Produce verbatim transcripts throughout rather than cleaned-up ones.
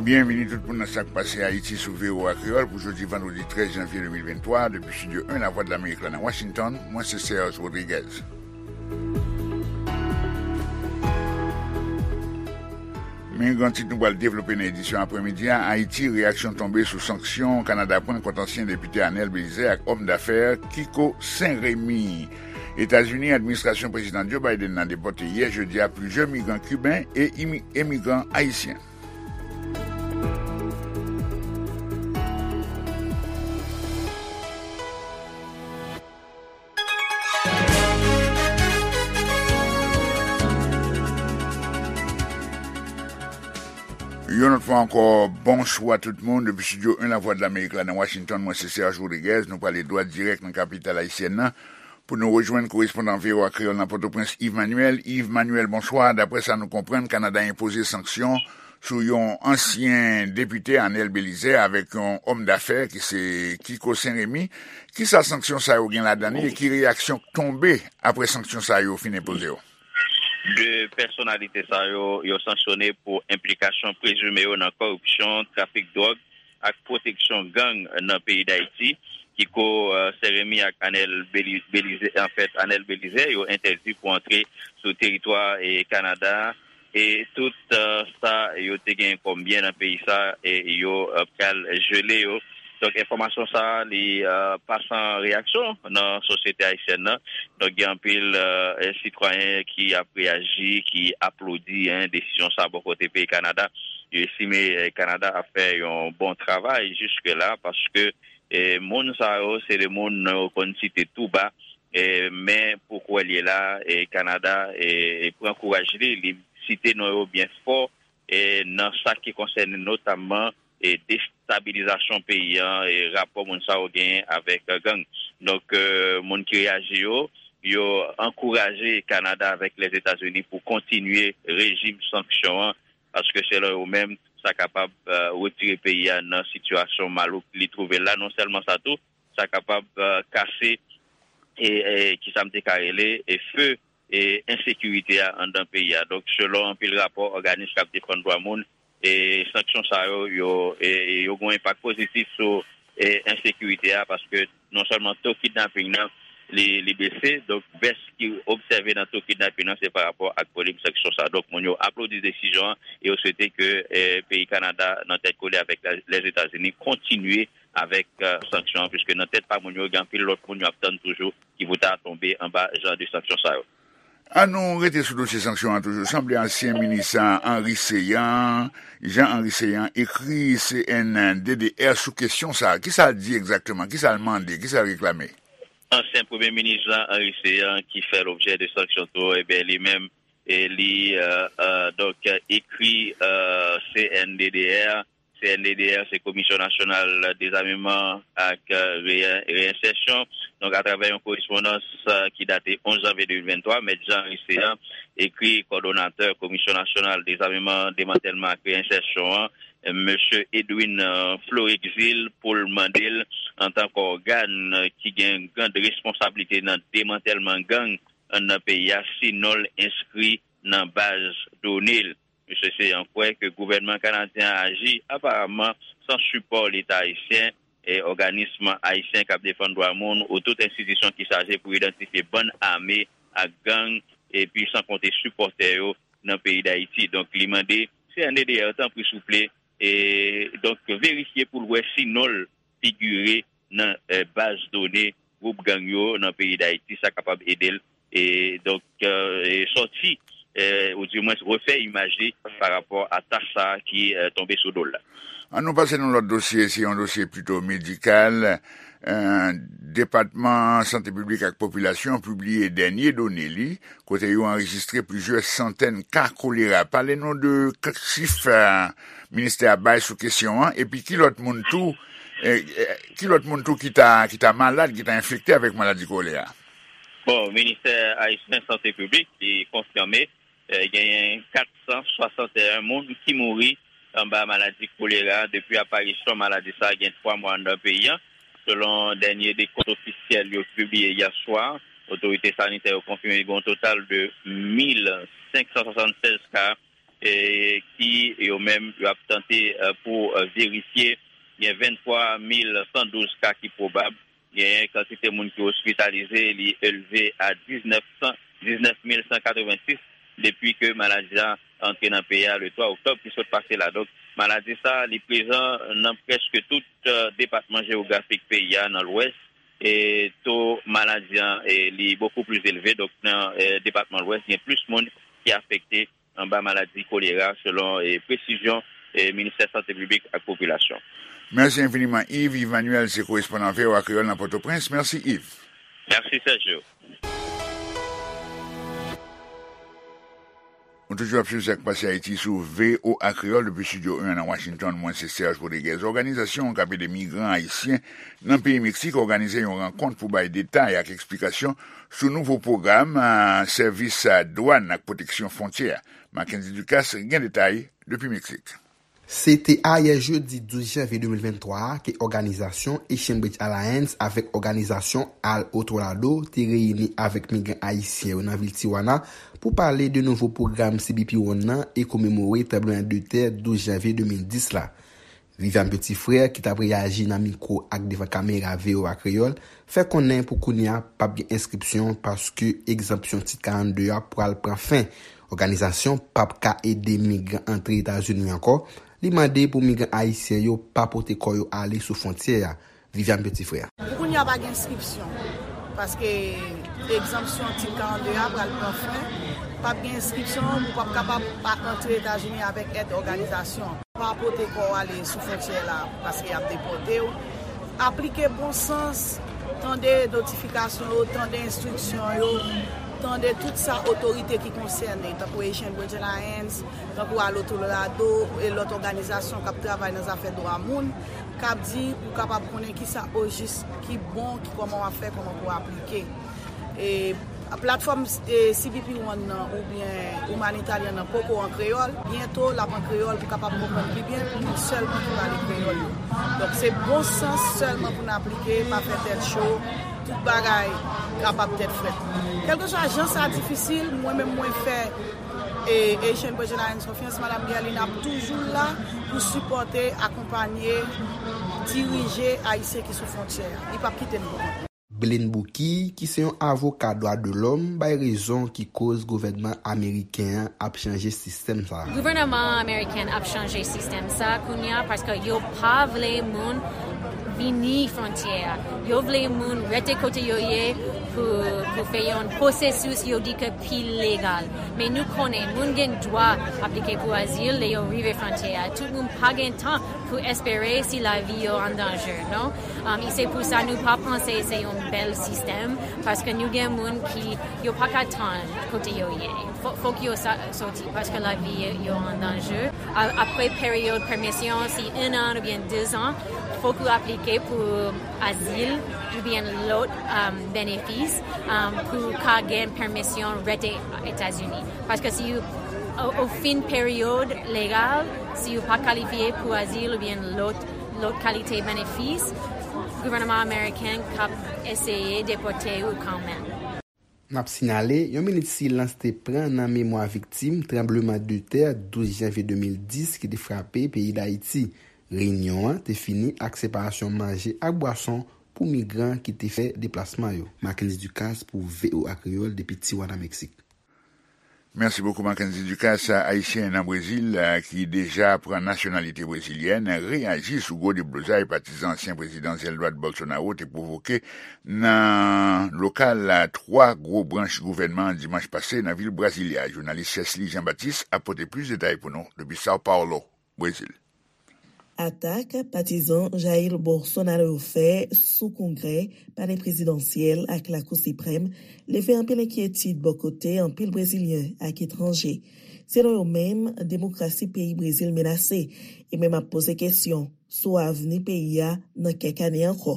Byenvini tout moun nan Sa k Pase Ayiti sou V O A Kreyòl pou jodi vandredi trèz janvye de mil venntwa, depi Estidyo en Lavwadlamerik la nan Washington, mwen se Serge Rodriguez. Men gran tit nou pral devlope nan edisyon aprèmidi a: Ayiti, reyaksyon tonbe sou sanksyon Kanada pran kont ansyen depite Anèl Belizaire ak òm dafè Kiko Sen Remi. Etazini, administrasyon Prezidan Joe Biden nan depòte yè jedi a plizyè migran kiben e imi- emigran ayisyen. Yon lòt fwa ankò, bonswa tout moun. Depi Estidyo en Lavwadlamerik la nan Washington, mwen se Serge Rodriguez. Nou prale dwat dirèk nan kapital ayisyèn nan pou nou rejwenn korespondan V O A Kreyòl nan Pòtoprens, Yves Manuel. Yves Manuel, bonswa. Daprè sa nou konprann, Kanada enpoze sanksyon sou yon ansyen depite, Anèl Belizaire, avèk yon òm dafè ki se Kiko Sen Remi. Kisa sanksyon sa yo gen ladan li e ki reyaksyon k tonbe apre sanksyon sa yo fin enpoze yo? De pèsonalite sa yo, yo sanksyone pou enplikasyon prezime yo nan kòripsyon, trafik dwòg ak pwoteksyon gang nan peyi Dayiti. Kiko, eh, Sen Remi ak Anèl Beli-, Belize, anfèt, Anèl Belize, yo entèdi pou antre sou teritwa e Kanada. E tout, eh, sa yo te gen kòm byen nan peyi sa, e yo, eh, pral jele yo. Donk, enfòmasyon sa a, li, eh, pa san reyaksyon nan sosyete ayisyèn nan. Donk, gen anpil, eh, sitwayen ki ap reyaji, ki aplodi, en, desizyon sa a bò kote peyi Kanada. Yo estime, eh, Kanada ap fè yon bon travay jiske la, paske, eh, moun sa yo, se de moun yo konn site tou ba, eh, men pou kwè l ye la, eh, Kanada, eh, pran kouraj li, li site non yo byen fò, eh, nan sa ki konsène notamman, eh, destabilizasyon peyi an, eh, rapò moun sa yo genyen avèk, eh, gang. Donk, eh, moun ki reyaji yo, yo ankouraje Kanada avèk Lèzetazini pou kontinye rejim sanksyon an, paske selon yo menm, sa kapab, eh, retire peyi a nan sitiyasyon malouk li twouve l la. Non sèlman sa tou, sa kapab, eh, kase, e, e, kisa m te ka rele, e, fe, e, ensekirite a anndan peyi a. Donk, selon anpil rapò òganis k ap defann dwa moun, e, sanksyon sa yo, yo, e, yo gen yon enpak pozitif sou, e, ensekirite a, paske non sèlman to kidnaping nan, li, li bese, donk bès ki obsève nan to kidnaping nan, se pa rapò ak volim sanksyon sa. Donk, moun yo aplodi desizyon an e yo swete ke, e, peyi Kanada, nan tèt kole avèk la, Lèzetazini, kontinye avèk, e, sanksyon an, piske nan tèt pa moun yo, gen anpil lòt moun yo ap tann toujou ki pou ta tonbe anba jan de sanksyon sa yo. An nou rete sou dosye sanksyon an toujou. Sanble ansyen minis Henri Céant, Jean Henri Céant, ekri C N D D R sou kesyon sa a. Kisa l di egzakteman? Kisa l mande? Kisa l reklame? Ansyen premye minis Jean Henri Céant, ki fè lobjè de sanksyon tou, ebyen, li menm, e li, e, e, donk, ekri, e, C N D D R. C N D D R, se Komisyon Nasyonal Dezameman ak, e, Reye-, Reyensèsyon. Donk, atravè yon korespondans, e, ki date onz janvye de mil venntwa, Mèt Jean Henri Céant ekri kòdonatè Komisyon Nasyonal Dezameman, Demantèlman ak Reyensèsyon an, Mesye Edwin, e, Florexil, pou l mande l, antan k ògàn ki gen grande responsablite nan demantèlman gang nan peyi a, si non l enskri nan baz done l. Mesye Céant kwè ke gouvènman kanadyen an aji aparamman san sipò Leta ayisyen, e òganis ayisyen k ap defann dwa moun ou tout enstitisyon ki chaje pou idantifye bann ame ak gang, epi san konte sipòtè yo nan peyi Dayiti. Donk, li mande C N D D R, tanpri, souple, e, donk, verifye pou l wè si non l figire nan, e, baz done gwoup gang yo nan peyi Dayiti, sa kapab ede l, e, donk, e, e, sòti, e, oudimwens refè imaj li pa rapò a tach sa a ki, e, tonbe sou do l la. An nou pase nan lòt dosye, se yon dosye pito medikal. E, Depatman Sante Piblik ak Popilasyon pibliye dènye done li, kote yo anrejistre plizyè santèn ka kolera. Pale nou de k-, chif, e, ministè a bay sou kesyon an, epi ki lòt moun tou, e, e, ki lòt moun tou ki ta, ki ta malad, ki ta enfekte avèk maladi kolera? Bon, Ministè Ayisyen Sante Piblik, li konfime, e, genyen kat san swasanteyen moun ki mouri anba maladi kolera depi aparisyon maladi sa a gen twa mwa anndan peyi a. Selon dènye dekont ofisyèl yo pibliye yè swa, otorite sanitè yo konfime gen yon total de mil senk san swasannsèz ka e ki yo menm yo ap tante, e, pou, e, verifye. Gen venntwa mil san douz ka ki pwobab. Gen kantite moun ki ospitalize, li elve a diznèf san, diznèf mil san katrevensis depi ke maladi a antre nan peyi a le twa oktòb ki sot pase la. Donk, maladi sa, li prezan nan prèske tout, e, depatman jewografik peyi a nan Lwès. E to maladi an, e, li bokou plis elve. Donk, nan, e, depatman Lwès, gen plis moun ki afekte anba maladi kolera, selon, e, presizyon, e, Ministè Sante Piblik ak Popilasyon. Mèsi enfiniman, Yves. Yves Manuel se korespondan V O A Kreyòl nan Pòtoprens. Mèsi, Yves. Mèsi, Sergio. Ou toujou ap swiv Sa k Pase Ayiti sou V O A Kreyòl depi Estidyo en nan Washington. Mwen se Serge Rodriguez. Òganizasyon k ap ede migran ayisyen nan peyi Meksik òganize yon rankont pou bay detay ak eksplikasyon sou nouvo pwogram, a, sèvis, a, dwàn ak pwoteksyon fwontyè a. Mackenzie Ducasse gen detay depi Meksik. Se te ayè jedi douz janvye de mil venntwa a ke òganizasyon Asian Bridge Alliance avèk òganizasyon Al Otro Lado te reyini avèk migran ayisyen yo nan vil Tijuana pou pale de nouvo pwogram C B P One nan e komemore tranblemanntè douz janvye de mil dis la. Viviane Petit-Frère, ki t ap reyaji nan mikwo ak devan kamera V O A Kreyòl, fè konnen pou kounye a p ap gen enskripsyon paske egzanpsyon Tit karannde a pral pran fen. Òganizasyon p ap ka ede migran antre Etazini ankò. Li mande pou migran ayisyen yo pa pote kò yo ale sou fwontyè a. Viviane Petit-Frère. Pou kounye a pa gen enskripsyon, paske egzanpsyon Tit karannde a pral pran fen. P ap gen enskripsyon, ou p ap kapab pa antre Etazini avèk èd òganizasyon. Pa pote kò w ale sou fwontyè la, paske y ap depòte w. Aplike bon sans, tande notifikasyon yo, tande enstriksyon yo, tande tout sa otorite ki konsène, tankou Asian Bridge Alliance, tankou Al Otro Lado e lòt òganizasyon k ap travay nan zafè dwa moun, k ap di pou w kapab konnen kisa ojis ki bon, ki kòman w ap fè, kòman pou w aplike. E platfòm, e, C B P One nan oubyen Humanitarian nan poko an kreyòl. Byento, l ap an kreyòl pou kapab konprann pi byen moun sèlman ki pale kreyòl yo. Donk, se bon sans sèlman pou n aplike, pa fè tèt cho, tout bagay kapab tèt frèt. Kèlkeswa jan sa difisil, mwen menm mwen fè, e, Asian Bridge Alliance konfyans, Madanm Guerline ap toujou la pou sipòte, akonpanye, dirije Ayisyen ki sou fwontyè a. Li p ap kite n pou kont nou. Blaine Bouquille, ki se yon avoka dwa de lòm, bay rezon ki koz gouvènman ameriken an ap chanje sistèm sa a. Gouvènman ameriken ap chanje sistèm sa a kounye a paske yo pa vle moun vini fwontyè a. Yo vle moun rete kote yo ye pou, pou fè yon pwosesis yo di ke pi legal. Men nou konnen moun gen dwa aplike pou azil lè yo rive fwontyè a. Tout moun pa gen tan pou espere si lavi yo an danje, non? Um, e se pou sa nou pa panse se yon bèl sistèm, paske nou gen moun ki yo pa ka tann kote yo ye. Fò, fòk yo sa, soti, paske lavi yo an danje. A, apre peryòd pèmisyon, si en an oubyen de zan, fòk ou aplike pou azil oubyen lòt, um, benefis, um, pou ka gen pèmisyon rete Etazini. Paske si ou, o, o fen peryòd legal, si ou pa kalifye pou azil oubyen lòt, lòt kalite benefis, gouvènman ameriken k ap eseye depòte ou kanmenm. N ap sinyale, yon minit silans te pran nan memwa viktim tranbleman de tè douz janvye de mil dis ki te frape peyi Dayiti. Reyinyon an te fini ak separasyon manje ak bwason pou migran ki te fè deplasman yo. Mackenzie Ducasse pou V O A Kreyòl depi Tijuana, Meksik. Mèsi bokou, Mackenzie Ducasse. Ayisyen nan Brezil, eh, ki deja pran nasyonalite brezilyèn, reyaji sou gwo deblozay patizan ansyen prezidan Jair Bolsonaro te pwovoke nan lokal, eh, twa gwo branch gouvènman an dimanch pase nan vil Brasilia. Jounalis Chesly Jean Baptiste ap pote plis detay pou nou depi São Paulo, Brezil. Atak patizan Jair Bolsonaro yo fè sou Kongrè, Palè Prezidansyèl ak Lakou Siprèm leve anpil enkyetid bò kote anpil Brezilyen ak etranje. Selon yo menm, demokrasi peyi Brezil menase e menm ap poze kesyon sou avni peyi a nan kèk ane ankò.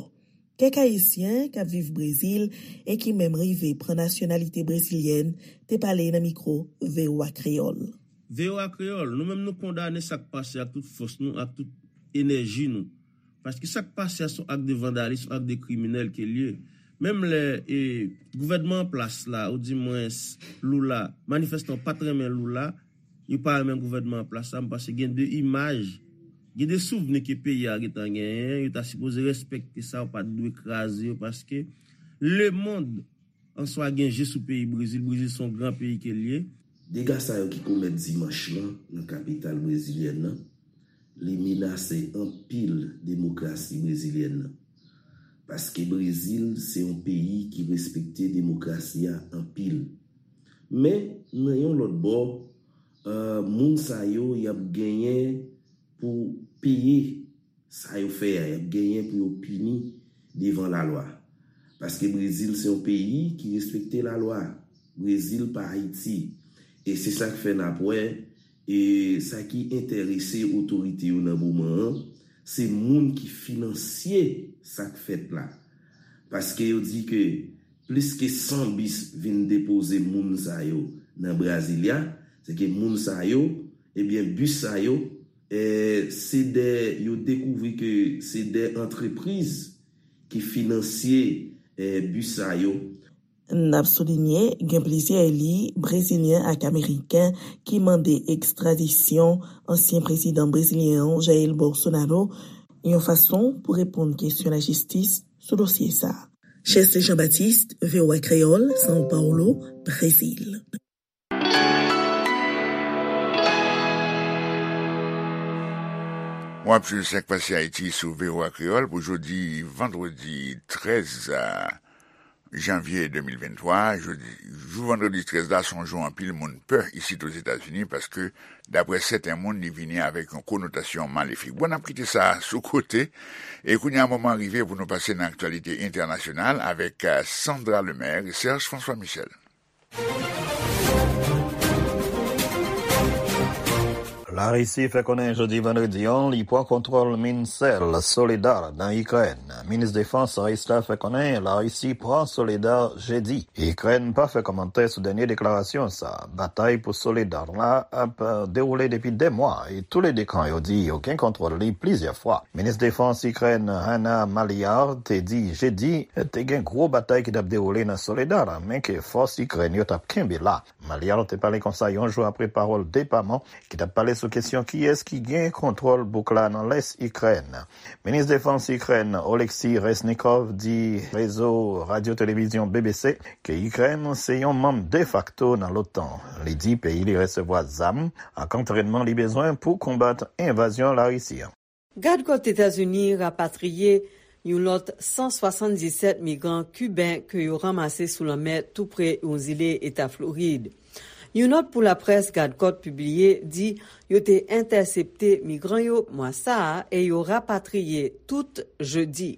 Kèk Ayisyen k ap viv Brezil e ki menm rive pran nasyonalite brezilyèn te pale nan mikwo V O A Kreyòl. V O A Kreyòl, nou menm nou kondane sa k pase ak tout fòs nou, ak tout enèji nou. Paske sa k pase a se yon ak de vandalis, yon ak de kriminèl ke l ye. Menm lè, e, gouvènman an plas la, oudimwens Lula, manifestan yo pa t renmen Lula, yo pa renmen gouvènman an plas la, m panse gen de imaj, gen de souvni ke peyi a gentan genyen, yo ta sipoze respekte sa, yo pa t dwe kraze yo, paske lemonn an swa gen je sou peyi Brezil. Brezil se yon gran peyi ke l ye. Dega sa yo ki komèt dimanch lan nan kapital brezilyèn nan, li menase anpil demokrasi brezilyèn nan. Paske Brezil se yon peyi ki respekte demokrasi a anpil. Men, nan yon lòt bò, eh, moun sa yo, y ap genyen pou peye sa yo fè a, y ap genyen pou yo pini devan lalwa. Paske Brezil se yon peyi ki respekte lalwa. Brezil pa Ayiti. E se sa k fè n ap wè, e sa ki enterese otorite yo nan moman an, se moun ki finansye sa k fèt la. Paske yo di ke plis ke san bis vin depoze moun sa yo nan Brasilia, se ke moun sa yo, ebyen, bis sa yo, eh, se de, yo dekouvri ke se de antrepriz ki finansye, eh, bis sa yo. N ap soulinye, gen plizyè eli brezilyen ak ameriken ki mande ekstradisyon ansyen prezidan brezilyen an, Jair Bolsonaro, yon fason pou reponn kesyon lajistis sou dosye sa a. Chèste Jean-Baptiste, V O A Kreyòl, São Paulo, Brezil. W ap swiv Sa k Pase Ayiti sou V O A Kreyòl pou jodi vandredi trèz janvye de mil venntwa. Jodi, jou vandredi trèz la, se yon jou anpil moun pè isit Ozetazini paske, daprè sèten moun, li vini avèk yon konotasyon malefik. Bon, n ap kite sa sou kote. E kounye a, moman rive pou nou pase nan aktyalite entènasyonal avèk, eh, Sandra Lemaire e Serge François Michel. Larisi fè konnen jodi vandredi an li pran kontwòl min sèl Soledar nan Ikrèn. Minis defans ris la fè konnen Larisi pran Soledar jedi. Ikrèn pa fè kòmantè sou dènye deklarasyon sa. Batay pou Soledar la ap, eh, dewoule depi dè mwa e toulede kan yo di yo gen kontwòl li plizyè fwa. Minis defans Ikrèn Hanna Maliar te di jedi te gen gwo batay ki t ap dewoule nan Soledar, men ke fòs Ikrèn yo t ap kenbe la. Maliar te pale konsa yon jou apre pawòl depaman ki t ap pale sou kesyon kiyès ki gen kontwòl bouk la nan lès Ikrèn. Minis defans Ikrèn Oleksiy Reznikov di rezo radyo televizyon B B C ke Ikrèn se yon manm defakto nan l'OTAN. Li di peyi li resevwa zam ak antrènman li bezwen pou konbat envazyon Larisi an. Gad kòt Etazini rapatriye yon lòt san swasanndisèt migran kiben ke yo ranmase sou lanmè tou pre yon zile Eta Florid. Yon nòt pou laprès gad kòt pibliye di yo te entèsepte migran yo mwa sa a e yo rapatriye tout jedi.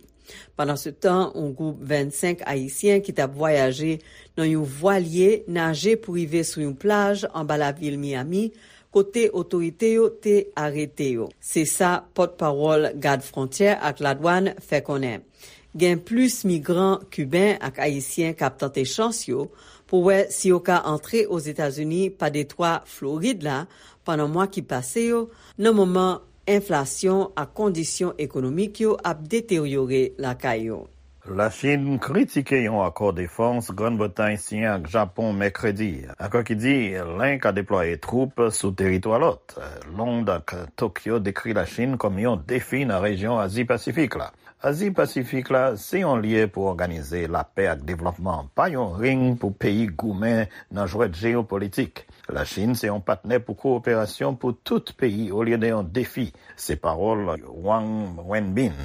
Pandansetan, yon gwoup vennsenk Ayisyen ki t ap vwayaje nan yon vwalye naje pou rive sou yon plaj anba lavil Miami, kote otorite yo te arete yo. Se sa pòtpawòl Gad Fwontyè ak Ladwàn fè konnen. Gen plis migran kiben ak ayisyen k ap tante chans yo pou wè si yo ka antre Ozetazini pa detwa Florid la pandan mwa ki pase yo, nan moman enflasyon ak kondisyon ekonomik yo ap deteryore lakay yo. Lachin kritike yon akò defans Grann Bretay siyen ak Japon mèkredi, akò ki di len ka deplwaye twoup sou teritwa lòt. Lond ak Tokyo dekri Lachin kòm yon defi nan rejyon Azi Pasifik la. Azi Pasifik la se yon lye pou òganize lapè ak devlòpman, pa yon ring pou peyi goumen nan jwèt jeyopolitik. Lachin se yon patnè pou kowoperasyon pou tout peyi olye de yon defi. Se pawòl Wang Wenbin,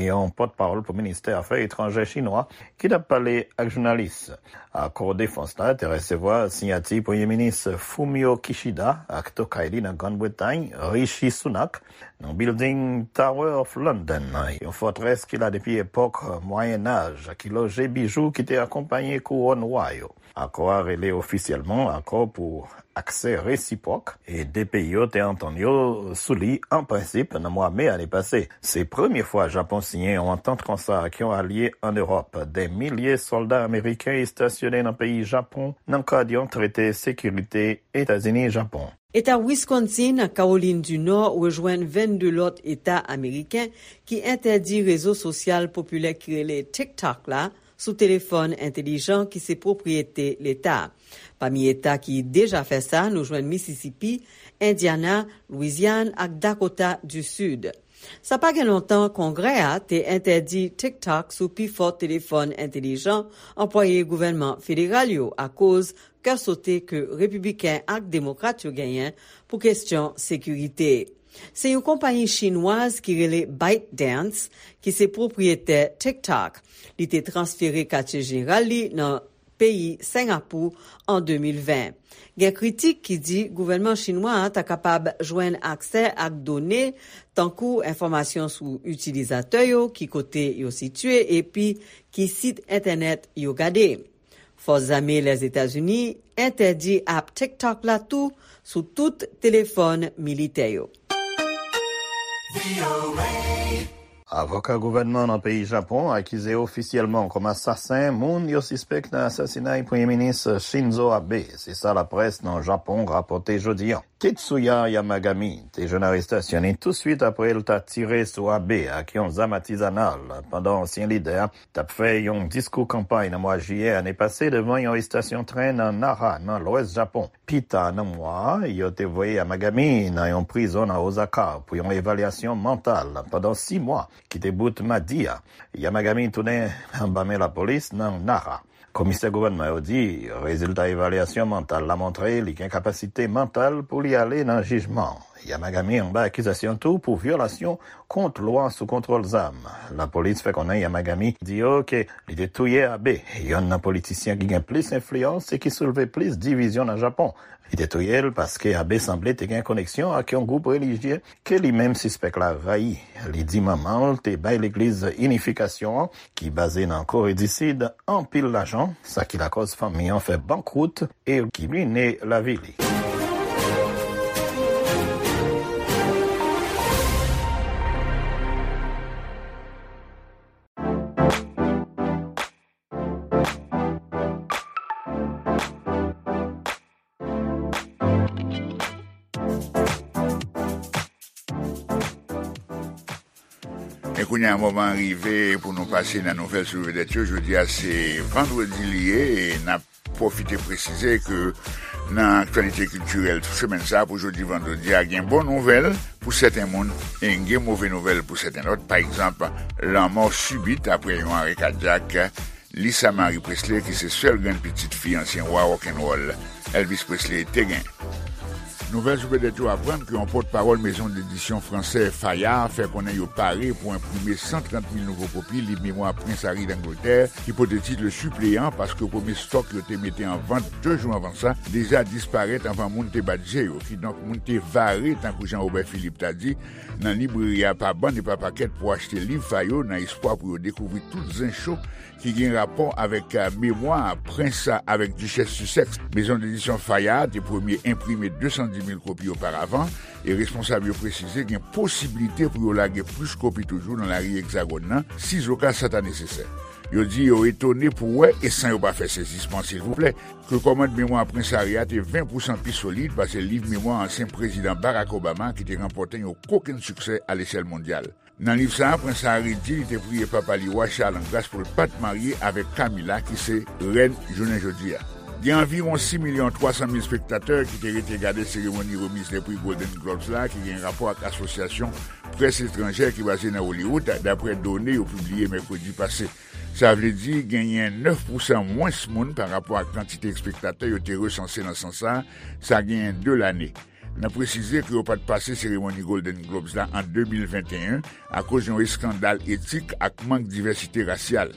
yon pòtpawòl pou ministè afè etranjè chinwa, ki t ap pale ak jounalis. Akò defans la te resevwa siyati Premye Minis Fumio Kishida ak tokay li nan Grann Bretay, Rishi Sunak, nan bilding Tower of London, yon fòtrès ki la depi epòk Mwayennaj, ki loje bijou ki te akonpaye kouwòn wa yo. Akò a rele ofisyèlman Akò pou Aksè Resipwòk, e de peyi yo te antann yo sou li an prensip nan mwa me ane pase. Se premye fwa Japon siyen yon antant konsa ak yon alye ann Ewòp. Dè milye sòlda ameriken estasyone nan peyi Japon nan kad yon trete sekirite Etazini-Japon. Eta Wisconsin ak Kawolin di Nò rejwenn vennde lòt eta ameriken ki entèdi rezo sosyal popilè ki rele TikTok la sou telefòn entelijan ki se pwopriyete Leta. Pami eta ki deja fè sa, nou jwenn Mississippi, Indiana, Louisiane ak Dakota du Sud. Sa pa gen lontan, Kongrè a te entèdi TikTok sou pifò telefòn entelijan anplwaye gouvènman federal yo akoz kè sote ke repibliken ak demokrat yo genyen pou kesyon sekirite. Se yon konpayi chinwaz ki rele ByteDance ki se pwopriyetè TikTok. Li te transfere katye jeneral li nan peyi Sengapou an de mil ven. Gen kritik ki di gouvènman chinwa a ta kapab jwenn aksè ak done tankou enfòmasyon sou itilizatè yo, ki kote yo sitiye epi ki sit entènèt yo gade. Fòs zame Lèzetazini entèdi ap TikTok la tou sou tout telefòn militè yo. Avoka gouvènman nan peyi Japon akize ofisyèlman kòm asasen moun yo sispèk nan asasinay Premye Minis Shinzo Abe, se sa laprès nan Japon rapòte jodi a. Tetsuya Yamagami te jwenn arestasyon li touswit apre l ta tire sou Abe ak yon zam atizanal pandan ansyen lidè a t ap fè yon diskou kanpay nan mwa jiyè ane pase devan yon estasyon tren nan Nara, nan lwès Japon. Pita nan mwa a, yo te voye Yamagami nan yon prizon nan Osaka pou yon evalyasyon mantal pandan sis mwa ki te bout madi a. Yamagami tounen anba men lapolis nan Nara. Komisè gouvènman yo di rezilta evalyasyon mantal la montre li gen kapasite mantal pou li ale nan jijman. Yamagami anba akizasyon tou pou vyolasyon kont lwa sou kontwòl zam. Lapolis fè konnen Yamagami di yo ke li te touye Abe, yonn nan politisyen ki gen plis enfliyans e ki soulve plis divizyon nan Japon. Li te touye l paske Abe sanble te gen koneksyon ak yon gwoup relijye ke li menm sispèk la rayi. Li di manman l te bay Legliz Inifikasyon an, ki baze nan Kore di Sid, anpil lajan, sa ki lakòz fanmi an fè bankwout e ki rine lavi li. E kounye a, moman an rive pou nou pase nan nouvèl sou vedèt yo. Jodi a se vandredi li ye, e n ap pwofite presize ke nan aktyalite kiltirèl semèn sa a, pou jodi vandredi a, gen bon nouvèl pou sèten moun e gen move nouvèl pou sèten lòt. Pa egzanp, lanmò sibit apre yon arè kadyak Lisa Marie Presley, ki se sèl grann pitit fi ansyen wa rock'n'roll Elvis Presley, te gen. Nouvèl sou vedèt yo aprann ke yon pòtpawòl mezon dedisyon fransè Fayard fè konnen yo pare pou enprime san trant mil nouvo kopi liv memwa Prens Harry Langletè, ki pote tit Le Suppléant, paske premye stòk yo te mete an vant de jou anvan sa deja disparèt anvan moun te bat je yo. Kidonk, moun te vare, tankou Jean Robert Philippe ta di, nan libreri a pa bann e pa pakèt pou achte liv sa yo, nan espwa pou yo dekouvri tout zen cho ki gen rapò avèk, eh, memwa prens avèk dichès Sussex. Mezon dedisyon Fayard te premye enprime de san di mil kopi oparavan, e responsab yo presize gen posiblite pou yo lage plis kopi toujou nan lari Egzagòn nan, sizoka sa ta nesesè. Yo di yo etone pou wè, e san yo pa fè sezisman silvouplè, ke kòmand memwa Prens Harry a te ven pousan pi solid pase liv memwa ansyen prezidan Barack Obama, ki te ranpòte yon kokenn siksè alechèl mondyal. Nan liv sa a, Prens Harry di li te priye papa li, Wa Charles, an gras pou l pa t marye avèk Camilla, ki se rèn jounen jodi a. Gen anviwon sis milyon twa san mil espektatè ki te rete gade seremoni remiz lè pri Golden Globes la, ki gen rapò ak asosyasyon près etranjè ki baze nan Hollywood, daprè done yo pibliye mèkredi pase. Sa vle di genyen nèf pousan mwens moun pa rapò ak kantite espektatè yo te resanse nan sans sa, sa genyen de lane. N ap presize ke yo pa t pase seremoni Golden Globes la an de mil venteyen akoz yon eskandal etik ak mank divèsite rasyal.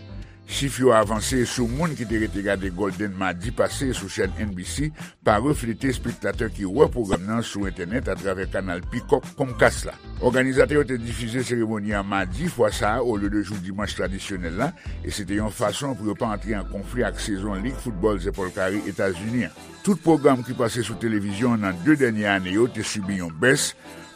Chif yo avanse sou moun ki te rete gade Golden madi pase sou chèn N B C pa reflete espektatè ki wè pwogram nan sou entènèt atravè kanal Peacock Comcast la. Òganizatè yo te difize seremoni an madi fwa sa a olye de jou dimanch tradisyonèl la, e se te yon fason pou yo pa antre an konfli ak sezon Lig Foutbòl Zèpòl Kare Etazini an. Tout pwogram ki pase sou televizyon nan de dènye ane yo te sibi yon bès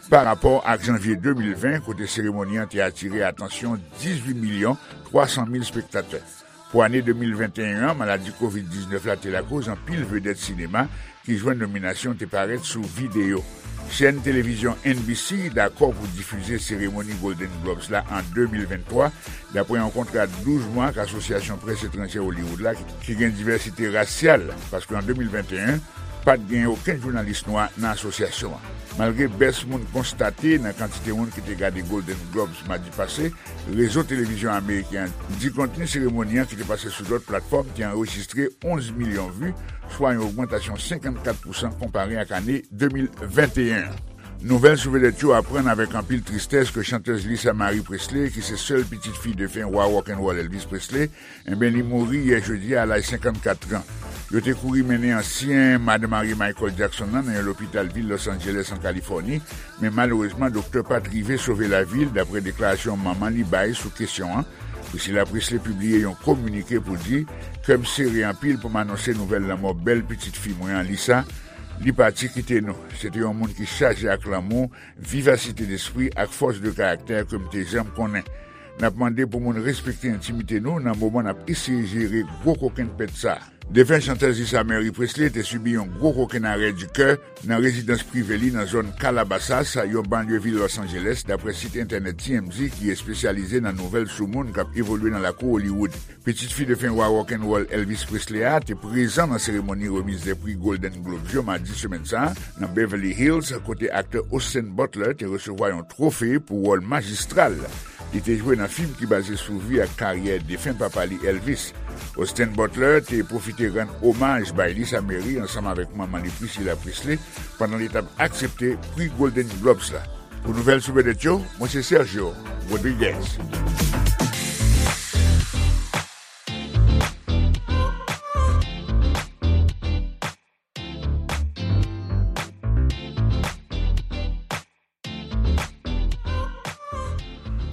pa rapò ak janvye de mil ven, kote seremoni an te atire atansyon dizuit milyon twa san mil espektatè. Pou ane de mil venteyen an, maladi kovid diznèf la te lakoz anpil vedèt sinema ki jwenn nominasyon te parèt sou videyo. Chèn televizyon N B C dakò pou difize seremoni Golden Globes la an de mil venntwa, dapre yon kontra douz mwa ak Asosyasyon Près Etranjè Hollywood la, ki, ki gen divèsite rasyal, paske an de mil venteyen, pa t gen okenn jounalis nwa nan asosyasyon an. Malgre bès moun konstate nan kantite moun ki te gade Golden Globes madi pase, rezo televizyon ameriken an di kontni seremoni an ki te pase sou lòt platfòm te anrejistre onz milyon vi, swa yon ogmantasyon senkannkat pousan konpare ak ane de mil venteyen an. Nouvèl sou vedèt yo aprann avèk anpil tristès ke chantèz Lisa Marie Presley, ki se sèl pitit fi defen wa rock'n'roll Elvis Presley, enben, li mouri yè jedi a, a laj senkannkat an. Yo te kouri mennen ansyen madanm Harry Michael Jackson nan, nan yon lopital vil Los Angeles, an Kalifòni, men malerezman, doktè pa t rive sove lavi l, dapre deklarasyon manman li bay sou kesyon an. Priscilla Presley pibliye yon kominike pou di, "Kè m sere anpil pou m anonse nouvèl lanmò bèl pitit fi mwen an, Lisa. Li pati kite nou. Se te yon moun ki chaje ak lanmou, vivasite despri ak fòs de karaktè ke m te janm konnen. N ap mande pou moun respekte entimite nou nan moman n ap eseye jere gwo kokenn pèt sa a." Defen chantèz Lisa Marie Presley te sibi yon gwo kokenn arè di kè nan rezidans prive li nan zòn Calabasas, yon banlye vil Los Angeles, dapre sit entènèt T M Z ki espesyalize nan nouvèl sou moun k ap evolye nan lakou Hollywood. Pitit fi defen wa rock'n'roll Elvis Presley a te prezan nan seremoni remiz de pri Golden Globes yo madi semèn sa a nan Beverly Hills, kote aktè Austin Butler te resevwa yon twofe pou wòl majistral li te jwe nan fim ki baze sou vi ak karyè defen papa li Elvis. Austin Butler te pwofite rann omaj bay Lisa Marie ansanm avèk manman li Priscilla Presley pandan li t ap aksepte pri Golden Globes la. Pou nouvèl sou vedèt yo, mwen se Sergio Rodriguez.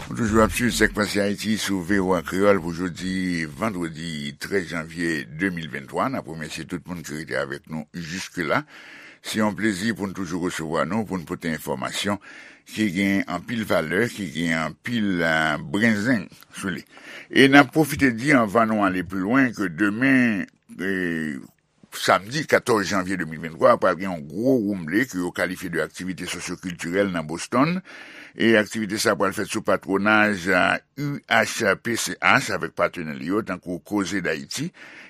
Ou toujou ap swiv Sak Pase Ayiti sou V O A Kreyòl pou jodi vandredi trèz janvye de mil venntwa. N ap remèsye tout moun ki rete avèk nou jiske la. Se yon plezi pou n toujou resevwa nou, pou n pote enfòmasyon ki gen anpil valè, ki gen anpil, eh, brenzeng sou li. E n ap pwofite di, anvan nou ale pi lwen, ke demen, eh, samdi katòz janvye de mil venntwa, pral gen yon gwo woumble ke yo kalifye de aktivite sosyokiltirèl nan Boston. E aktivite sa pral fèt sou patwonaj, eh, U H P C H avèk patnè li yo, tankou Koze Dayiti,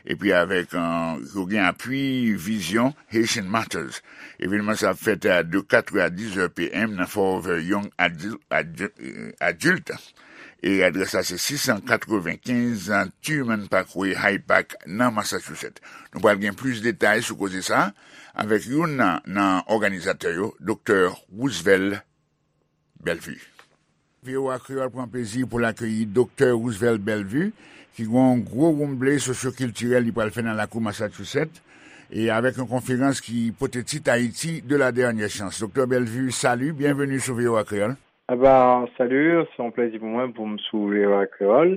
epi avèk, eh, yo gen apui Vizyon Haitian Matters. Evenman sa ap fèt, eh, de kat è a diz è P M nan Forever Young Adil-, Adil-, eh, Adult. E adrès la se sis san katrevenkenz Truman Parkway, Hyde Park, nan Massachusetts. Nou pral gen plis detay sou koze sa a avèk youn nan, nan òganizatè yo, Doktè Roosevelt Bellevue. V O A Kreyòl pran plezi pou l akeyi Doktè Roosevelt Bellevue, ki gen yon gwo woumble sosyokiltirèl li pral fè nan lakou Massachusetts, e avèk yon konferans ki pote tit Haïti de la dernière chance. Doktè Bellevue, salut, bienvenue sou V O A Kreyòl. Aba, salut, se yon plezi pou mwen pou m sou V O A Kreyòl,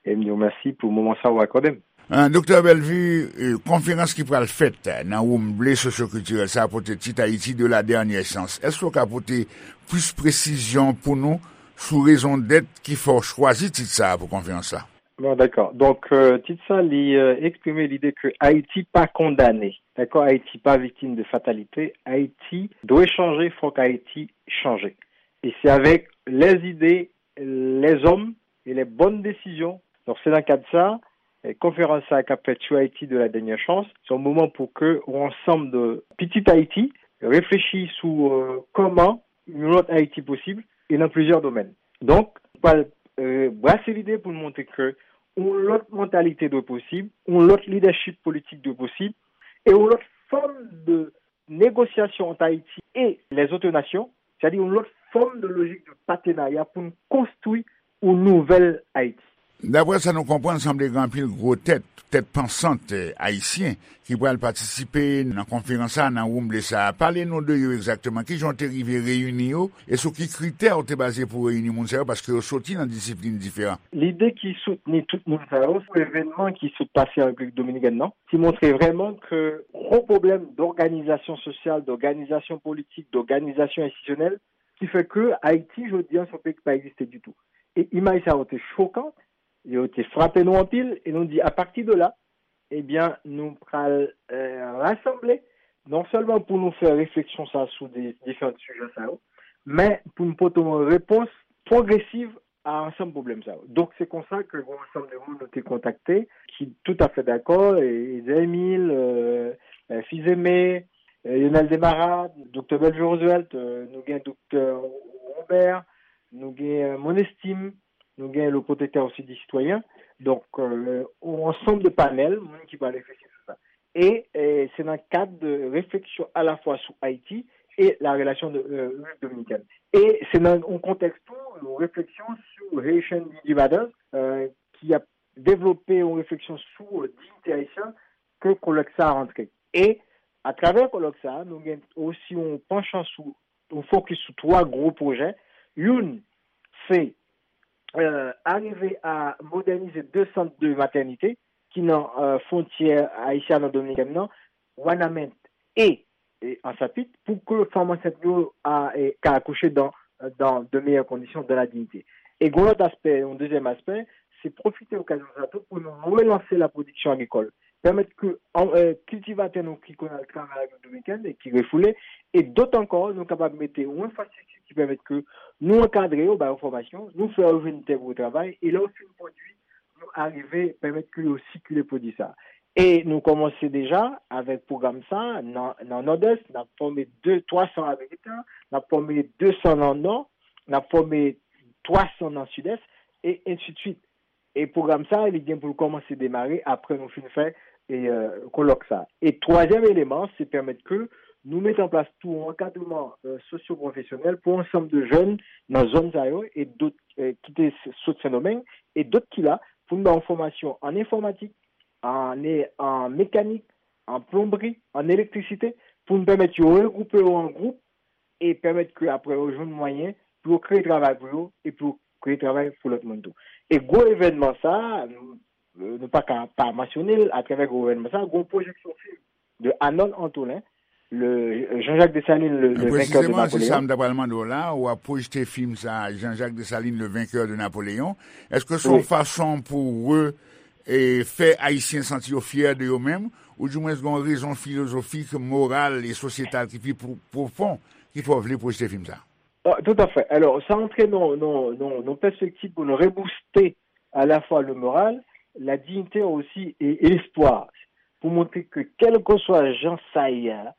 e m di w mèsi pou moman sa w akòde m. Ah, Doktè Bellevue, eh, konferans ki pral fèt nan woumble sosyokiltirèl sa a pote tit Haïti de la dernière chance. Èske w ka pote plis presizyon pou nou sou rezon dèt ki fè w chwazi tit sa a pou konferans la? Bon, dakò. Donk, euh, tit sa, li, euh, eksprime lide ke Ayiti pa kondane. Dakò? Ayiti pa viktim de fatalite. Ayiti dwe chanje, fòk Ayiti chanje. E se avèk lèzide, lèzòm e lè bòn desizyon. Donk, se nan kad sa, eh, konferans sa k ap fèt sou Ayiti de la dernière chance, se yon moman pou ke yon ansanm de pitit Ayiti reflechi sou, euh, kòman yon lòt Ayiti posib, e nan plizyè domèn. Donk, pral, euh, brase lide pou n montre ke yon lòt mantalite dwe posib, yon lòt lidèchip politik dwe posib, e yon lòt fòm de negosyasyon ant Ayiti e lèzòt nasyon, sètadi yon lòt fòm de lojik de patenarya pou n konstwi yon nouvèl Ayiti. Daprè sa nou konprann, sanble gen anpil gwo tèt, tèt pansant, eh, ayisyen ki pral patisipe nan konferans sa, nan woumble sa. Pale nou de yo egzakteman. Kijan w te rive reyini yo? E sou ki kritè w te baze pou w reyini moun sa yo? Paske yo soti nan disiplin diferan. Lide ki soutni tout moun sa yo, se evènman ki sot pase an Repiblik Dominikèn nan, ki montre vrèman ke gwo pwoblèm dòganizasyon sosyal, dòganizasyon politik, dòganizasyon enstitisyonèl, ki fè ke Ayiti, jodi a, se yon peyi ki pa egziste ditou. E imaj sa yo te chokan, yo te frape nou anpil, e nou di, apati de la, ebyen, nou pral, eh, rasanble, non sèlman pou nou fè refleksyon sa sou de diferan sijè sa yo, men pou nou pote yon repons pwogresiv a ansanm pwoblèm sa yo. Donk, se konsa ke yon ansanm de moun nou te kontakte, ki toutafè dakò, e, Ezer Emile, euh, euh, Fils-Aimé, euh, Lionel Desmarais, Doktè Bellevue Roosevelt, euh, nou gen Doktè Robert, nou gen, euh, Monestime, nou gen le Protecteur aussi des citoyens. Donk, euh, yon ansanm de panèl, moun ki pral reflechi sou sa. E, e se nan kad de refleksyon alafwa sou Ayiti e la relasyon de, euh, Repiblik Dominikèn. E se nan yon kontèks tou, yon refleksyon sou Haitian Dignity Matters, euh, ki ap devlope yon refleksyon sou, euh, diyite ayisyen ke kolèk sa a rantre. E atravè kolèk sa a, nou gen osi yon panchan sou, yon fokis sou twa gwo pwojè. Youn, se, euh, arive a modènize de sant de matènite ki nan, euh, fwontyè ayisyano-dominikèn nan, Wanament e, e Ansapit, pou ke fanm ansent yo a, e, ka akouche dans, dans de meilleures conditions, dans la dignité. E gen yon lòt aspè, yon dezyèm aspè, se pwofite okazyon sa tou pou nou relanse la pwodiksyon agrikòl. Pèmèt ke, an, e, kiltivatè nou ki konn al travay an Repiblik Dominikèn e ki refoule, e dòt ankò, nou kapab mete yon enfrastrikti ki pèmèt ke nou ankadre yo, ba yo fòmasyon, nou fè yo jwenn tè pou yo travay, e lè yo fin pwodui, nou arive pèmèt ke yo sikile pwodui sa. E nou kòmanse deja avèk pwogram sa nan, nan Nòdès, n ap fòme de, twa san agrikitan, n ap fòme de san nan Nò, n ap fòme twa san nan Sidès, e ensidswit. E pwogram sa, li gen pou l kòmanse demare apre nou fin fè, e, e, kolòk sa. E twazyèm eleman, se pèmèt ke nou mete an plas tou yon ankadreman, e, sosyopwofesyonèl pou ansanm de jèn nan zòn sa yo e dòt, e, ki te s-, sot Sendomeng e dòt ki la, pou n ba yo fòmasyon an enfòmatik, an, e, an mekanik, an plonbri, an elektrisite, pou n pèmèt yo regwoupe yo an gwoup e pèmèt ke apre yo jwenn mwayen pou yo kreye travay pou yo e pou yo kreye travay pou lòt moun tou. E gwo evènman sa, nou, nou pa ka pa mansyone l atravè gwo evènman sa, gwo pwojeksyon fim de Arnold Antolin, le, Jean-Jacques Dessalines, le, le vainqueur de Napoléon. Presizeman, se sa m ta pral mande w la, w ap pwojte fim sa, Jean-Jacques Dessalines, le vainqueur de Napoléon. Èske se yon fason pou re, e, fè Ayisyen santi yo fyè de yo menm, oudimwens gen yon rezon filozofik, moral e sosyetal ki pi pwo-, pwofon ki fè w vle pwojte fim sa? Ah, tout à fait. Alò, sa antre nan, nan, nan, nan pèspektiv pou nou rebouste alafwa le moral, la dignité aussi e, e lespwa, pou montre ke kèlkeswa jan sa ye a,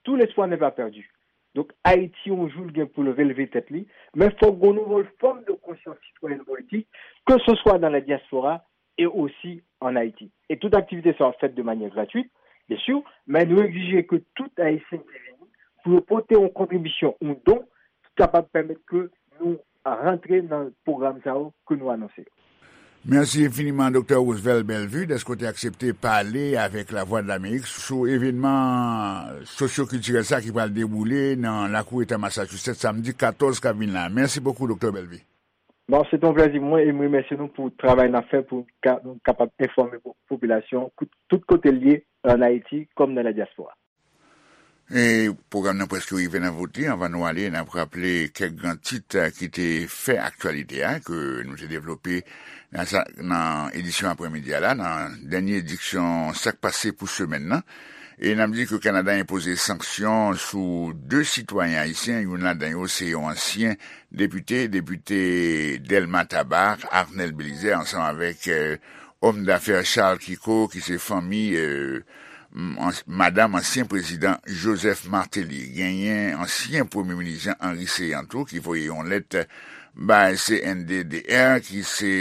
tout l'espoir n'est pas perdu. Donk, Ayiti, yon jou, l gen pou l releve tèt li, men fòk gen yon nouvo fòm de konsyans sitwayèn politik, ke se swa dans la diaspora et aussi en Haïti. E tout aktivite sa ap fèt de manyè gratwit, byen si, men nou egzije ke tout Ayisyen ki vini pou yo pote yon kontribisyon, yon don, ki kapab pèmèt ke nou rantre nan pwogram sa yo ke nou anonse yo. Mèsi enfiniman, Doktè Roosevelt Bellevue, dèske w te aksepte pale avèk Lavwadlamerik sou evènman sosyokiltirèl sa ki pral dewoule nan lakou eta Massachusetts samdi katòz k ap vin la. Mèsi bokou, Doktè Bellevue. Bon, se te yon plèzi pou mwen e m remèsye nou pou travay n ap fè pou ka, nou kapab enfòme po-, popilasyon tout, tout kote l ye, ann Ayiti kòm nan la dyaspora. E pwogram nan prèske rive nan bout li. Anvan nou ale, n ap raple kèk gran tit, eh, ki te fè aktyalite a, ke nou te devlope nan sa, nan edisyon aprèmidi a la, nan dènye edisyon Sa k pase pou semèn nan. E n ap di ke Kanada enpoze sanksyon sou de sitwayen ayisyen, youn ladan yo se yon ansyen depite, depite Dèlma Taba, Arnel Belizaire, ansanm avèk, eh, òm dafè Charles Kiko, ki se fanmi, eh, m-, ans-, madanm ansyen prezidan Joseph Martelly. Genyen ansyen premye minis Jean Henry Céant tou, ki voye yon lèt bay C N D D R, ki se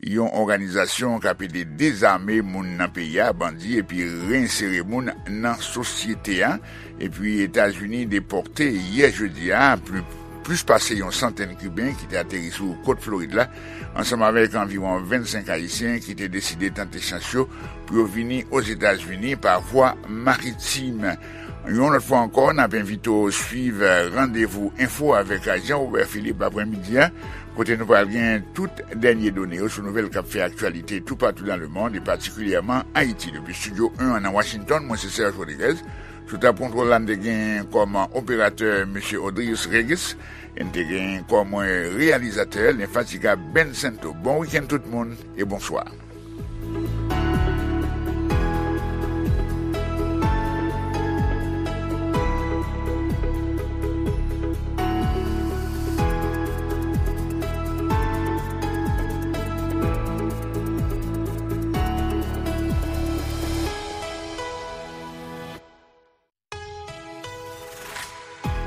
yon òganizasyon k ap ede dezame moun nan peyi a, bandi, epi reinsere moun nan sosyete a. Epi Etazini depòte yè jedi a pli-, plis pase yon santèn Kiben ki te ateri sou kot Florid la, ansanm avèk anviwon vennsenk Ayisyen ki te deside tante chans yo pou yo vini Ozetazini pa vwa maritim. Yon lòt fwa ankò, n ap envite w swiv Randevou Enfo avèk Jean Robert Philippe aprèmidi a, kote nou pral gen tout dènye done yo sou nouvèl k ap fè aktyalite toupatou nan lemonn, e patikilyèman Ayiti. Depi estidyo en an nan Washington, mwen se Serge Rodriguez. Sou tab kontwòl la, n te gen kòm operatè mesye Odrius Regis, e n te gen kòm reyalizatè lenfatigab Ben Sento. Bon wikenn tout moun, e bonswa.